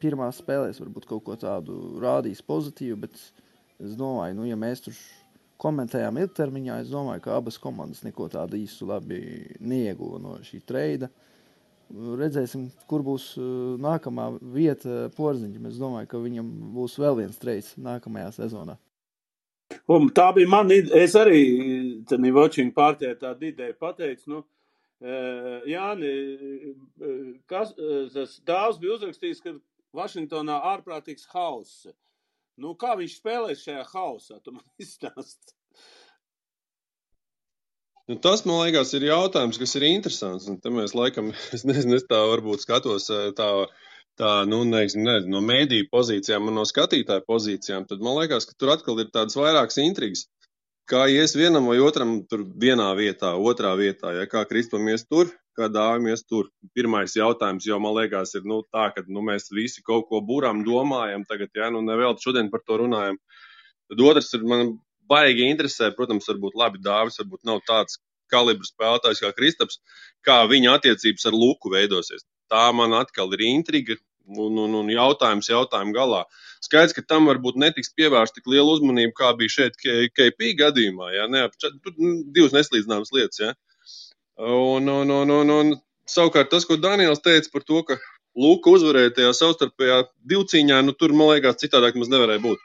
pirmās spēlēs varbūt kaut ko tādu rādīs pozitīvu, bet es domāju, ja mēs tur komentējām ilgtermiņā, es domāju, ka abas komandas neko tādu īstu labi neieguva no šī treida. Redzēsim, kur būs nākamā vieta Porziņam. Es domāju, ka viņam būs vēl viens treids nākamajā sezonā. Un tā bija man ideja. Es arī watching partijā tādu ideju pateicu. Jāni, tas Dāvs bija uzrakstījis, ka Vašingtonā ārprātīgs hauss. Kā viņš spēlēs šajā hausā? Tu man izstāsti. Tas, man liekas, ir jautājums, kas ir interesants. Un te mēs laikam, es nezinu, es tā varbūt skatos no mēdīju pozīcijām un no skatītāju pozīcijām, tad man liekas, ka tur atkal ir tādas vairākas intrigas. Kā ies vienam vai otram tur vienā vietā, otrā vietā, ja kā Kristupam ies tur, kā Dāvim ies tur. Pirmais jautājums jau, man liekas, ir tā, ka mēs visi kaut ko būrām, domājam tagad, nevēl šodien par to runājam. Tad otrs ir, man baigi interesē, protams, varbūt labi Dāvis, varbūt nav tāds kalibra spēlētājs kā Kristaps, kā viņa attiecības ar Luku veidosies. Tā man atkal ir intriga un jautājumu galā. Skaidrs, ka tam varbūt netiks pievērsta tik liela uzmanība, kā bija šeit KP gadījumā. Tur divas neslīdzināmas lietas. Ja? Un savukārt tas, ko Daniels teica par to, ka Luka uzvarēja tajā savstarpējā divcīņā, tur, man liekas, citādāk mums nevarēja būt.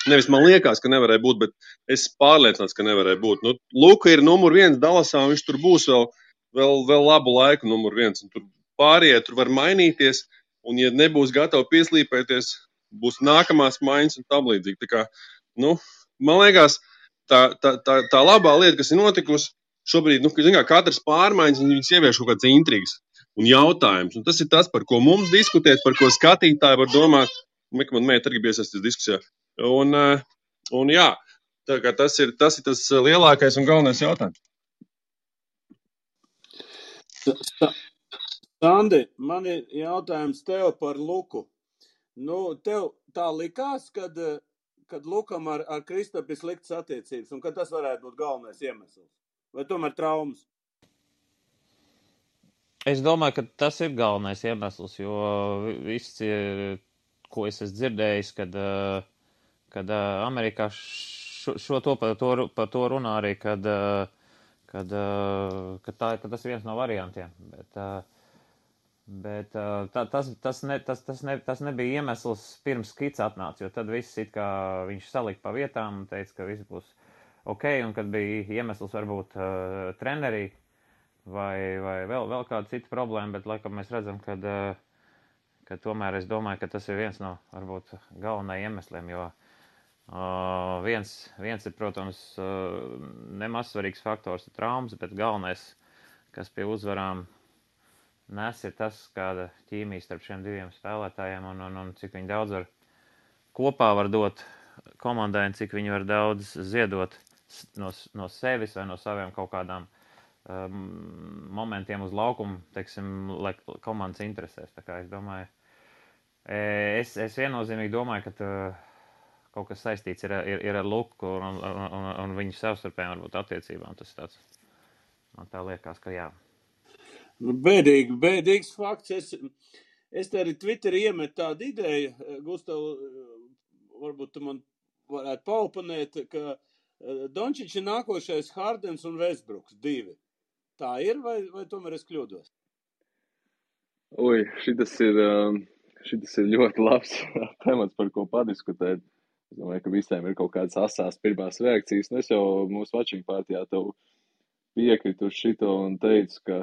Nevis man liekas, ka nevarēja būt, bet es pārliecināts, ka nevarēja būt. Luka ir numur 1 Dallasā, un viņš tur būs vēl labu laiku numur 1. Un tur pārējie tur var mainīties, un ja nebūs gatavi pieslīpēties, būs nākamās maiņas un tam līdzīgi. Tā kā, man liekas, tā labā lieta, kas ir notikusi šobrīd, katrs pārmaiņas, viņas ievieš kaut kāds intrigas un jautājums. Un tas ir tas, par ko mums diskutēt, par ko skatītāji var domāt. Man mēģina arī iesaistīties diskusijā. Un jā, tā kā tas ir tas lielākais un galvenais jautājums. Sandi, man ir jautājums tev par Luku. Tev tā likās, kad Lukam ar Kristapu ir sliktas attiecības, un ka tas varētu būt galvenais iemesls? Vai tomēr traumas? Es domāju, ka tas ir galvenais iemesls, jo viss, ko es esmu dzirdējis, kad Amerikā par to runā arī, ka tas ir viens no variantiem. Bet tas nebija iemesls pirms Kits atnāca, jo tad viss it kā viņš salika pa vietām un teica, ka viss būs ok, un kad bija iemesls varbūt trenerī vai vēl kāda cita problēma, bet laikam mēs redzam, ka tomēr es domāju, ka tas ir viens no varbūt galvenajiem iemesliem, jo viens ir, protams, nemaz svarīgs faktors ir traumas, bet galvenais, kas pie uzvarām nes, ir tas, kāda ķīmija starp šiem diviem spēlētājiem un cik viņi daudz kopā var dot komandai un cik viņi var daudz ziedot no sevis vai no saviem kaut kādām momentiem uz laukumu, teiksim, lai komandas interesēs. Tā kā es domāju, es viennozīmīgi domāju, ka kaut kas saistīts ir ar Luku un viņu savstarpējām varbūt attiecībām. Tas tāds, man tā liekas, ka jā. Bēdīgs fakts. Es te arī Twitterī iemetu tādu ideju, Gustav, varbūt tu man varētu paoponēt, ka Dončičs ir nākošais Hardens un Westbrooks 2. Tā ir, vai tomēr es kļūdos? Šitas ir ļoti labs temats, par ko padiskutēt. Es domāju, ka visiem ir kaut kādas asās pirmās reakcijas. Es jau mūsu watching partijā tev piekritu uz šito un teicu, ka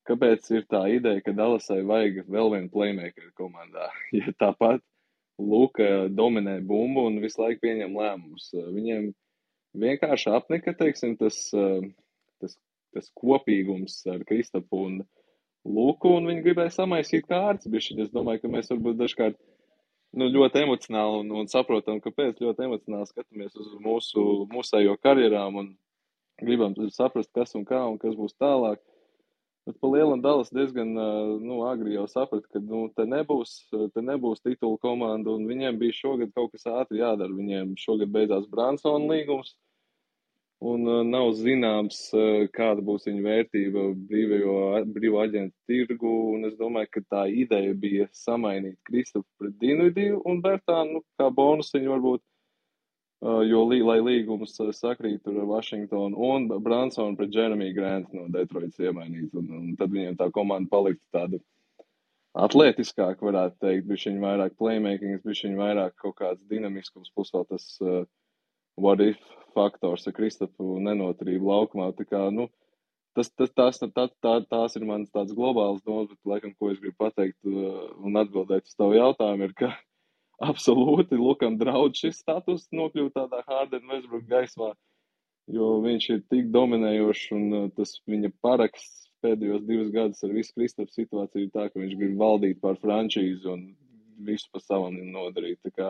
kāpēc ir tā ideja, ka Dallasai vajag vēl vienu playmakeru komandā. Ja tāpat Luka dominē bumbu un visu laiku pieņem lēmumus. Viņiem vienkārši apnika, teiksim, tas kopīgums ar Kristapu un Luku, un viņi gribēja samaisīt kārtas bišķiņ. Es domāju, ka mēs varbūt dažkārt ļoti emocionāli un saprotam, kāpēc ļoti emocionāli skatāmies uz mūsējo karjerām un gribam saprast, kas un kā un kas būs tālāk. Bet pa lielam Dallas diezgan agri jau saprata, ka te nebūs titula komanda, un viņiem bija šogad kaut kas ātri jādara. Viņiem šogad beidzās Bransona līgums, un nav zināms, kāda būs viņa vērtība brīvo aģentu tirgu, un es domāju, ka tā ideja bija samainīt Kristofu pret Dinvidiju un Bertānu, kā bonus viņu varbūt, jo, lai līgums sakrīt ar Washingtonu un Bransonu pret Jeremy Grant no Detroitas iemainīt, un tad viņiem tā komanda paliktu tāda atletiskāk, varētu teikt, bišķiņ vairāk playmakings, bišķiņ vairāk kaut kāds dinamiskums, plus vēl tas what if faktors ar Kristofu nenoturību laukumā. Tā kā, tās ir mans tāds globāls domas, bet laikam, ko es gribu pateikt un atbildēt uz tavu jautājumu, ir, ka absolūti Lukam draudz šis status nokļūt tādā Harden Westbrook gaismā, jo viņš ir tik dominējošs, un tas viņa paraksts pēdējos 2 gadus ar visu Kristofu situāciju ir tā, ka viņš grib valdīt pār frančīzi un visu pa savam nodarīt. Tā kā,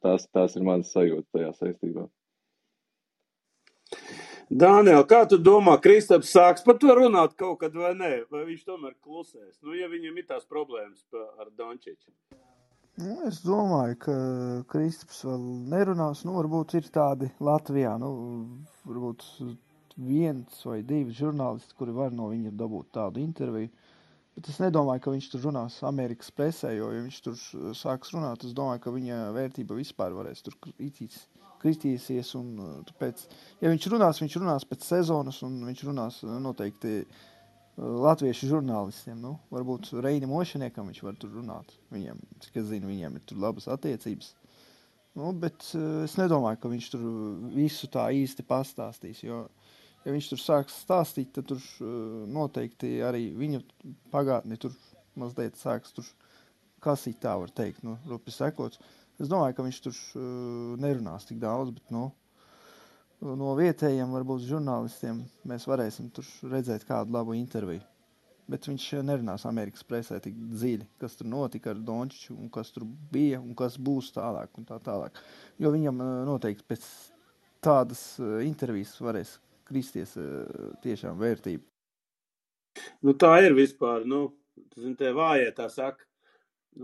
tās ir manas sajūtas tajā saistībā. Dāniel, kā tu domā, Kristaps sāks par to runāt kaut kad vai nē? Vai viņš tomēr klusēs? Ja viņam ir tās problēmas ar Dončiču. Es domāju, ka Kristaps vēl nerunās. Varbūt ir tādi Latvijā, varbūt 1 vai 2 žurnālisti, kuri var no viņa dabūt tādu interviju. Bet es nedomāju, ka viņš tur runās Amerikas presē, jo, ja viņš tur sāks runāt, es domāju, ka viņa vērtība vispār varēs tur kristīsies. Un tāpēc, ja viņš runās pēc sezonas, un viņš runās noteikti latviešu žurnālistiem. Varbūt Reini Mošaniekam viņš var tur runāt. Viņiem, cik es zinu, viņiem ir tur labas attiecības. Bet es nedomāju, ka viņš tur visu tā īsti pastāstīs, jo, ja viņš tur sāks stāstīt, tad tur noteikti arī viņa pagātni tur mazliet sāks tur kasīt, tā var teikt, rupi sekots. Es domāju, ka viņš tur nerunās tik daudz, bet, no vietējiem, varbūt žurnālistiem, mēs varēsim tur redzēt kādu labu interviju. Bet viņš nerunās Amerikas presē tik dziļi, kas tur notika ar Dončiču, un kas tur bija, un kas būs tālāk, un tā tālāk. Jo viņam noteikti pēc tādas intervijas varēs kristies tiešām vērtība. Tā ir vispār, te vājie tā saka.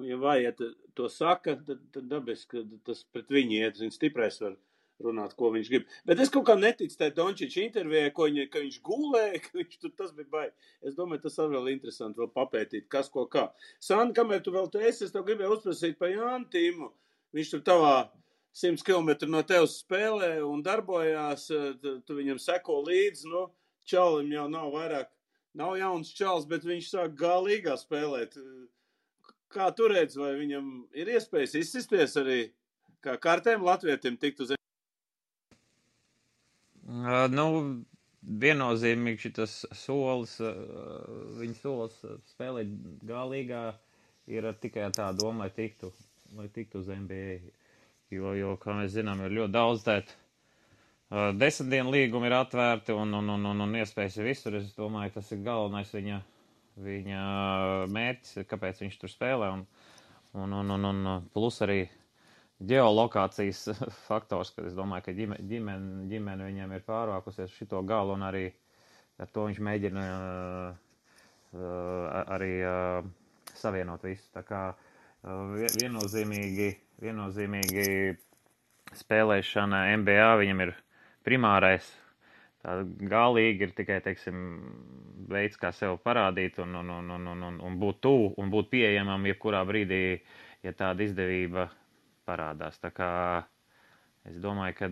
Ja vājie to saka, tad dabiski, ka tas pret viņu iet, viņš stiprais var runāt, ko viņš grib. Bet es kaut kā neticu tai Dončiča intervijai, ka viņš gulēja, ka viņš tur tas bija baigi. Es domāju, tas arī vēl interesanti vēl papētīt, kas ko kā. Sandi, kamēr tu vēl es tev gribēju uzprasīt par Jānu Timu. Viņš tur tavā 100 km no tevis spēlē un darbojās, tu viņam seko līdzi, čalim jau nav jauns čals, bet viņš sāk galīgā spēlēt. Kā tu redz, vai viņam ir iespējas izsisties arī kā kārtēm latvietim tikt uz? Viennozīmīgi šitas solis, viņa solis spēlēt galīgā ir tikai tā doma, lai tiktu uz NBA. Jo, kā mēs zinām, ir ļoti daudz tēt 10 dienu līgumi ir atvērti un iespējas ir visur. Es domāju, tas ir galvenais viņa mērķis, kāpēc viņš tur spēlē. Un plus arī ģeolokācijas faktors, kad es domāju, ka ģimene viņam ir pārvākusies šito galu, un arī ar to viņš mēģina arī savienot visu. Tā kā viennozīmīgi spēlēšana NBA viņam ir primārais. Tā galīgi ir tikai, veids, kā sev parādīt un būt tuvu un būt pieejamam jebkurā brīdī, ja tāda izdevība parādās. Tā kā es domāju, ka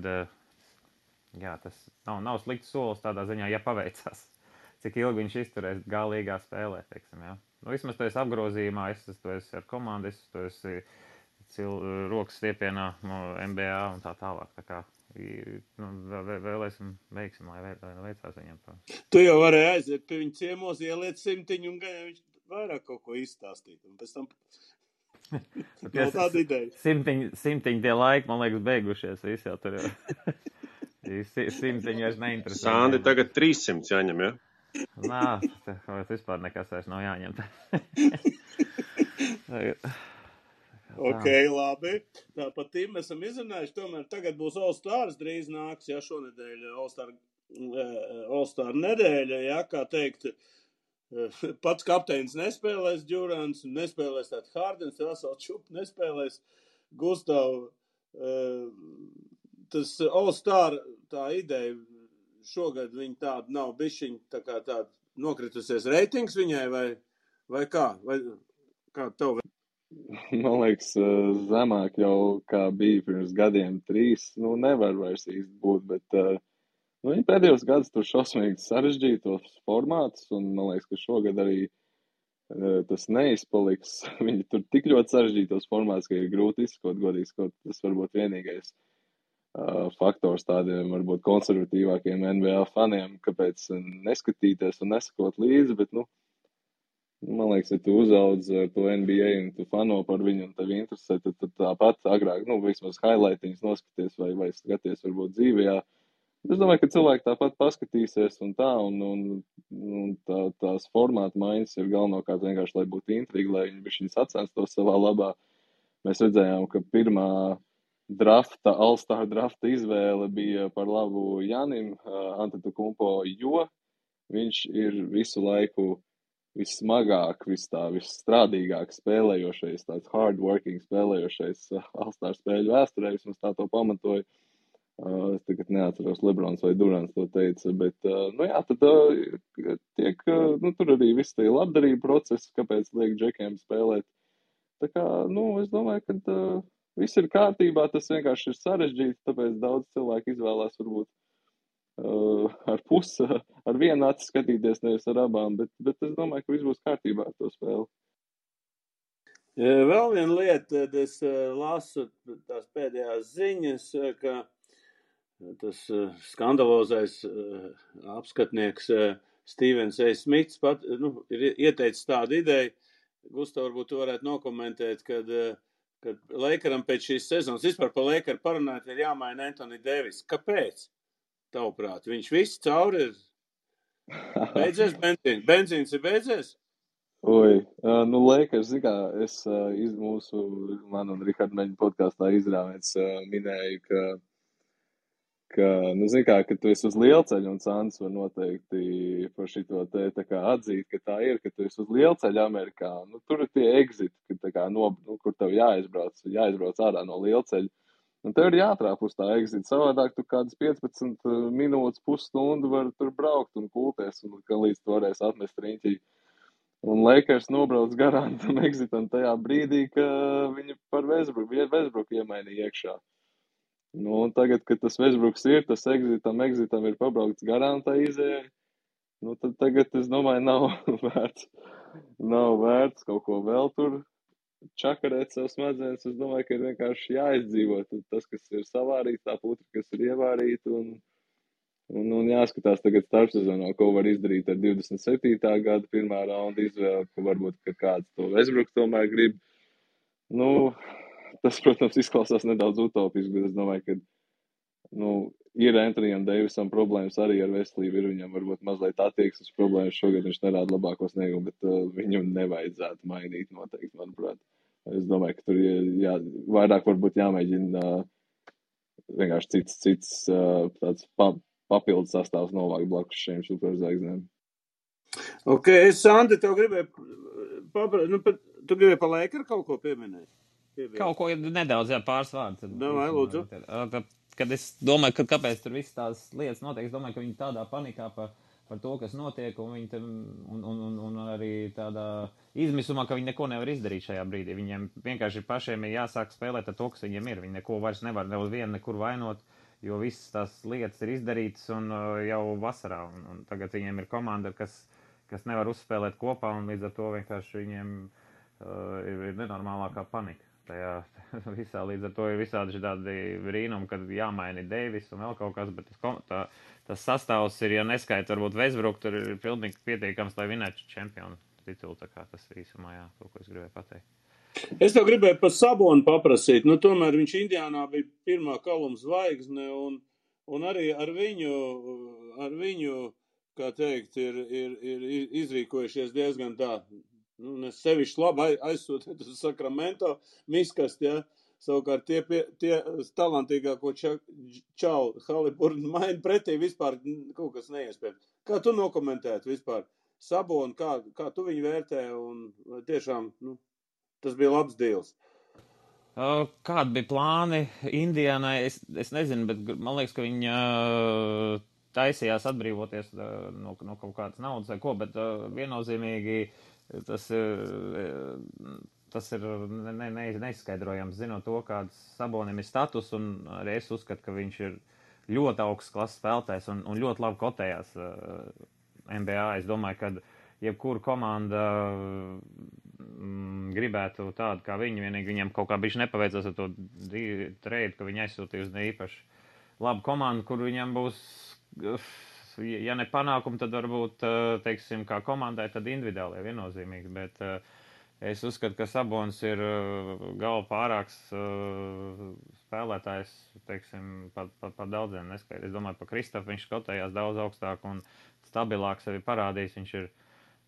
tas nav slikts solis tādā ziņā, ja paveicās. Cik ilgi viņš izturēs galīgā spēlē, jā. Vismaz tu esi apgrozījumā, tu esi ar komandu, tu esi rokas stiepienā NBA un tā tālāk. Tā kā vēlēsim veiksim, lai veicās viņam. Tu jau varēji aiziet pie viņa ciemos, ieliet 100 un viņš vairāk kaut ko izstāstīt. Un pēc tam nav tāda ideja. 100 tie laiki, man liekas, beigušies. Visi jau tur jau. 100 vairs neinteresē. Sandi, tagad 300 jāņem, ja? Nā, vispār nekas vairs nav jāņem. Ok, labi. Tāpat tim mēs esam izrunājuši. Tomēr tagad būs All-Stars drīz nāks, šonedēļ All-Star nedēļa, kā teikt. Pats kapteinis nespēlēs Durants, nespēlēs tātad Hardens, Russell Čup nespēlēs Gustav. Tas All-Star tā ideja šogad viņa tāda nav bišķiņ tā kā tāda nokritusies reitings viņai vai kā? Vai kā tev? Man liekas, zemāk jau kā bija pirms gadiem 3, nevar vairs īsti būt, bet viņi pēdējos gadus tur šausmīgi sarežģītos formātus, un man liekas, ka šogad arī tas neizpaliks. Viņi tur tik ļoti sarežģītos formātus, ka ir grūti izskot, godīgi skot. Tas varbūt vienīgais faktors tādiem varbūt konservatīvākiem NBA faniem, kāpēc neskatīties un nesakot līdzi, bet, man liekas, ja tu uzauds ar to NBA un tu fano par viņu un tev interesē, tad tāpat agrāk, vismaz highlightiņus noskaties vai skaties varbūt dzīvajā. Es domāju, ka cilvēki tāpat paskatīsies un tā, un tās formāta maiņas ir galvenokārt vienkārši, lai būtu intriga, lai viņi sacenstos savā labā. Mēs redzējām, ka pirmā All-Star drafta izvēle bija par labu Janim Antetokounmpo, jo viņš ir visu laiku vissmagāk, visstrādīgāk spēlējošais, tāds hard-working spēlējošais All-Star spēļu vēsturē, vismaz tā to pamatoja. Es tagad neatceros, Lebrons vai Durants to teica, bet, tad tiek, tur arī viss tie labdarība procesi, kāpēc liek džekiem spēlēt. Tā kā, es domāju, ka viss ir kārtībā, tas vienkārši ir sarežģīti, tāpēc daudz cilvēku izvēlās varbūt ar vienu aci skatīties, nevis ar abām, bet es domāju, ka viss būs kārtībā ar to spēli. Vēl viena lieta, tad es lasu tās pēdējās ziņas, ka tas skandalozais apskatnieks Stevens A. Smits ir ieteicis tādu ideju. Gustav, varbūt tu varētu nokomentēt, kad Lakeram pēc šīs sezonas, vispār par Lakeru parunāt, ir jāmaina Anthony Davis. Kāpēc? Tavuprāt, viņš viss cauri ir beidzies benzīns? Benzīns ir beidzies? Lakers, es man un Riharda Meņa podkāstā izrāvēts minēju, ka tu esi uz lielceļa, un Sants var noteikti par šito te tā kā atzīt, ka tā ir, ka tu esi uz lielceļa Amerikā. Tur ir tie exiti, kur tev jāizbrauc ārā no lielceļa. Un tev ir jātrāp uz tā exita. Savādāk tu kādas 15 minūtes, pusstundu var tur braukt un kulties, un ka līdz tu varēsi atmest riņķī. Un Lakers nobrauc garām tam exitam tajā brīdī, ka viņi par Westbrook iemainīja iekšā. Un tagad, kad tas Westbrooks ir, tas exitam ir pabraukts garām tā izēja, tad tagad, es domāju, nav vērts kaut ko vēl tur čakarēt sev smadzenes. Es domāju, ka ir vienkārši jāizdzīvo tas, kas ir savārīts, tā putra, kas ir ievārīta, un jāskatās tagad starpsezonā, ko var izdarīt ar 27. gada pirmā raunda izvēli, ka varbūt, ka kāds to Westbrook tomēr grib. Tas, protams, izklausās nedaudz utopiski, bet es domāju, ka ir Anthonyam Davisam problēmas arī ar veselību, ir viņam varbūt mazliet attieksmes problēmas, šogad viņš nerāda labāko sniegumu, bet viņu nevajadzētu mainīt noteikti, manuprāt. Es domāju, ka tur vairāk varbūt jāmēģina vienkārši cits tāds papildus sastāvs novākt blakus šiem superzvaigznēm. Ok, Sandi, tev gribēju tu gribēji pa Lakeru kaut ko pieminēt? Kaut ko nedaudz, pāris vārdus. Lūdzu. Kad es domāju, ka kāpēc tur viss tās lietas notiek, es domāju, ka viņi tādā panikā par to, kas notiek, un viņi un arī tādā izmisumā, ka viņi neko nevar izdarīt šajā brīdī. Viņiem vienkārši pašiem ir jāsāk spēlēt ar to, kas viņiem ir. Viņi neko vairs nevar nekur vainot, jo visas tās lietas ir izdarītas un jau vasarā. Un tagad viņiem ir komanda, kas nevar uzspēlēt kopā, un līdz ar to vienkārši viņiem ir nenormālākā panika. Tajā visā, līdz ar to ir visādi tādi brīnumi, kad jāmaina Davis un vēl kaut kas, bet tas sastāvs ir, ja neskaita, varbūt Westbrook, tur ir pilnīgi pietiekams, lai vinētu čempionu titulu, tā kā tas ir īsumā, to, ko es gribēju pateikt. Es tev gribēju par Sabonu paprasīt, tomēr viņš Indiānā bija pirmā kaluma zvaigzne, un arī ar viņu, kā teikt, ir izrīkojušies diezgan tā, es sevišķi labi aizsūtīt uz Sakramento miskast, savukārt tie talantīgāko čauli Haliburton maina pretī vispār kaut kas neiespējams. Kā tu nokomentētu vispār Saboni, kā tu viņu vērtē, un tiešām, tas bija labs deals. Kādi bija plāni Indianai? Es nezinu, bet man liekas, ka viņi taisījās atbrīvoties no kaut kādas naudas vai ko, bet viennozīmīgi tas ir neizskaidrojams, zinot to, kāds Sabonim ir status, un arī es uzskatu, ka viņš ir ļoti augsts klases spēlētājs un ļoti labi kotējās NBA. Es domāju, ka jebkura komanda gribētu tādu kā viņi, vienīgi viņam kaut kā bišķi nepaveicās ar to trade, ka viņi aizsūtīja uz neīpaši labu komandu, kur viņam būs, ja ne panākumi, tad varbūt, teiksim, kā komandai, tad individuāli viennozīmīgi, bet es uzskatu, ka Sabonis ir galva pārāks spēlētājs, teiksim, par daudziem neskaidrs. Es domāju, par Kristofu viņš skotējās daudz augstāk un stabilāk sevi parādījis. Viņš ir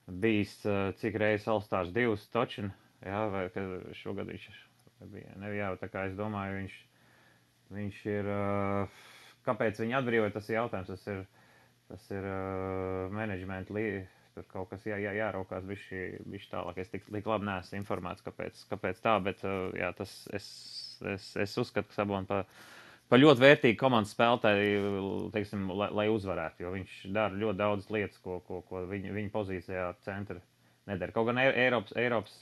bijis cik reizes All-Stars 2 točin, jā, vai šogad viņš bija, jā, tā kā es domāju, viņš ir, kāpēc viņi atbrīvoja, tas ir jautājums, tas ir management tur kaut kas jāraukās bišķi tālāk. Es tik labi neesmu informēts, kāpēc tā, bet jā, es uzskatu, ka Saboni par ļoti vērtīgu komandas spēlētāju, teiksim, lai uzvarētu, jo viņš dara ļoti daudz lietas, ko viņa pozīcijā centra nedara. Kaut gan Eiropas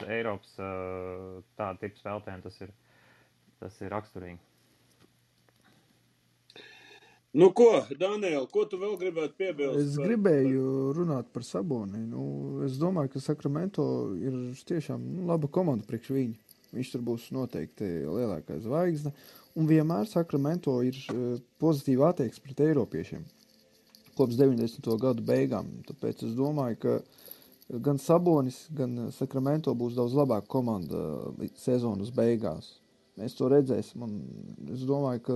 tāda tipa spēlētājiem tas ir raksturīgi. Ko, Daniel, ko tu vēl gribētu piebilst? Es gribēju runāt par Saboni. Es domāju, ka Sacramento ir tiešām laba komanda priekš viņu. Viņš tur būs noteikti lielākā zvaigzne. Un vienmēr Sacramento ir pozitīva attieksme pret eiropiešiem. Kopš 90. gadu beigām. Tāpēc es domāju, ka gan Sabonis, gan Sacramento būs daudz labāka komanda sezonas beigās. Mēs to redzēsim. Un es domāju, ka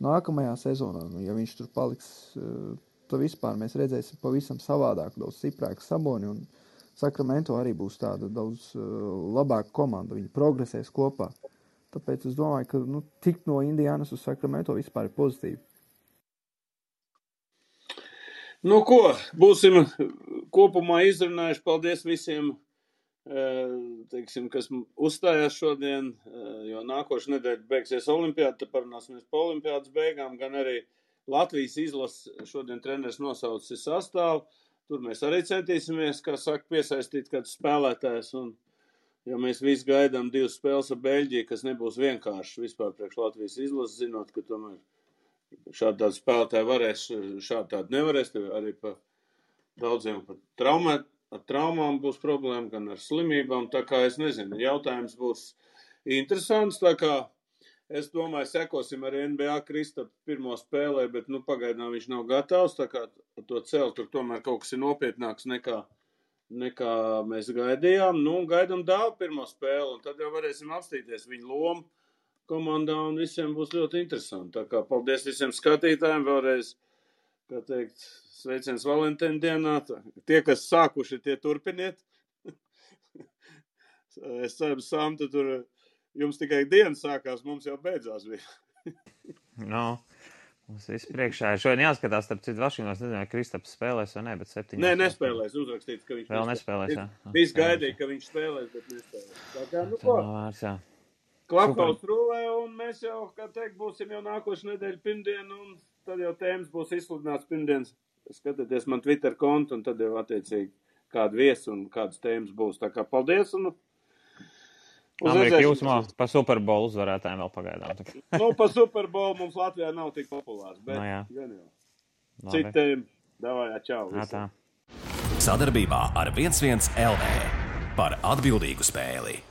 nākamajā sezonā, ja viņš tur paliks, tad vispār mēs redzēsim pavisam savādāk, daudz stiprāku Saboni, un Sacramento arī būs tāda daudz labāka komanda, viņi progresēs kopā. Tāpēc es domāju, ka tikt no Indianas uz Sacramento vispār ir pozitīvi. Ko, būsim kopumā izrunājuši. Paldies visiem, teiksim, kas uzstājās šodien, jo nākošu nedēļu beigsies olimpiāda, tad parunāsimies pa olimpiādas beigām, gan arī Latvijas izlases šodien treneris nosaucis sastāvu. Tur mēs arī centīsimies, kā saka, piesaistīt kādus spēlētājus, un jo mēs visi gaidām 2 spēles ar Beļģiju, kas nebūs vienkārši vispār priekš Latvijas izlases, zinot, ka tomēr šādi tādi spēlētāji varēs, šādi tādi nevarēs, arī pa daudziem ar traumām būs problēma, gan ar slimībām, tā kā es nezinu, jautājums būs interesants, tā kā es domāju, sekosim arī NBA Kristapu pirmo spēlē, bet pagaidām viņš nav gatavs, tā kā to celt, tur tomēr kaut kas ir nopietnāks nekā mēs gaidījām. Gaidām Dāvu pirmo spēli, un tad jau varēsim apstīties viņu lomu komandā, un visiem būs ļoti interesanti. Tā kā paldies visiem skatītājiem vēlreiz, kā teikt, sveiciens Valentīna dienā. Tie, kas sākuši, tie turpiniet. Es ceru, Samta, tur jums tikai diena sākās, mums jau beidzās bija. Mums viss priekšā ir. Šodien jāskatās, starp citu Vašingtonas, nezinu, vai Kristaps spēlēs vai ne, bet 7. Nē, nespēlēs, uzrakstīts, ka viņš vēl nespēlēs, jā. Viss gaidīja, ka viņš spēlēs, bet nespēlēs. Tā kā, ko? Klapkauts rulē, un mēs jau, kā teikt, būsim jau nākošu nedēļu pirmdienu, un tad jau tēmas būs izsludināts pirmdienas. Skatieties man Twitter kontu, un tad jau attiecīgi kādu viesu un kādas tēmas būs. Tā kā paldies, un Amerika jūsmā pa Super Bowl uzvarētājiem vēl pagaidām. Pa Super Bowl mums Latvijā nav tik populārs, bet gan jau. Citiem, davājā, čau. Tā. Sadarbībā ar 11 LV par atbildīgu spēli.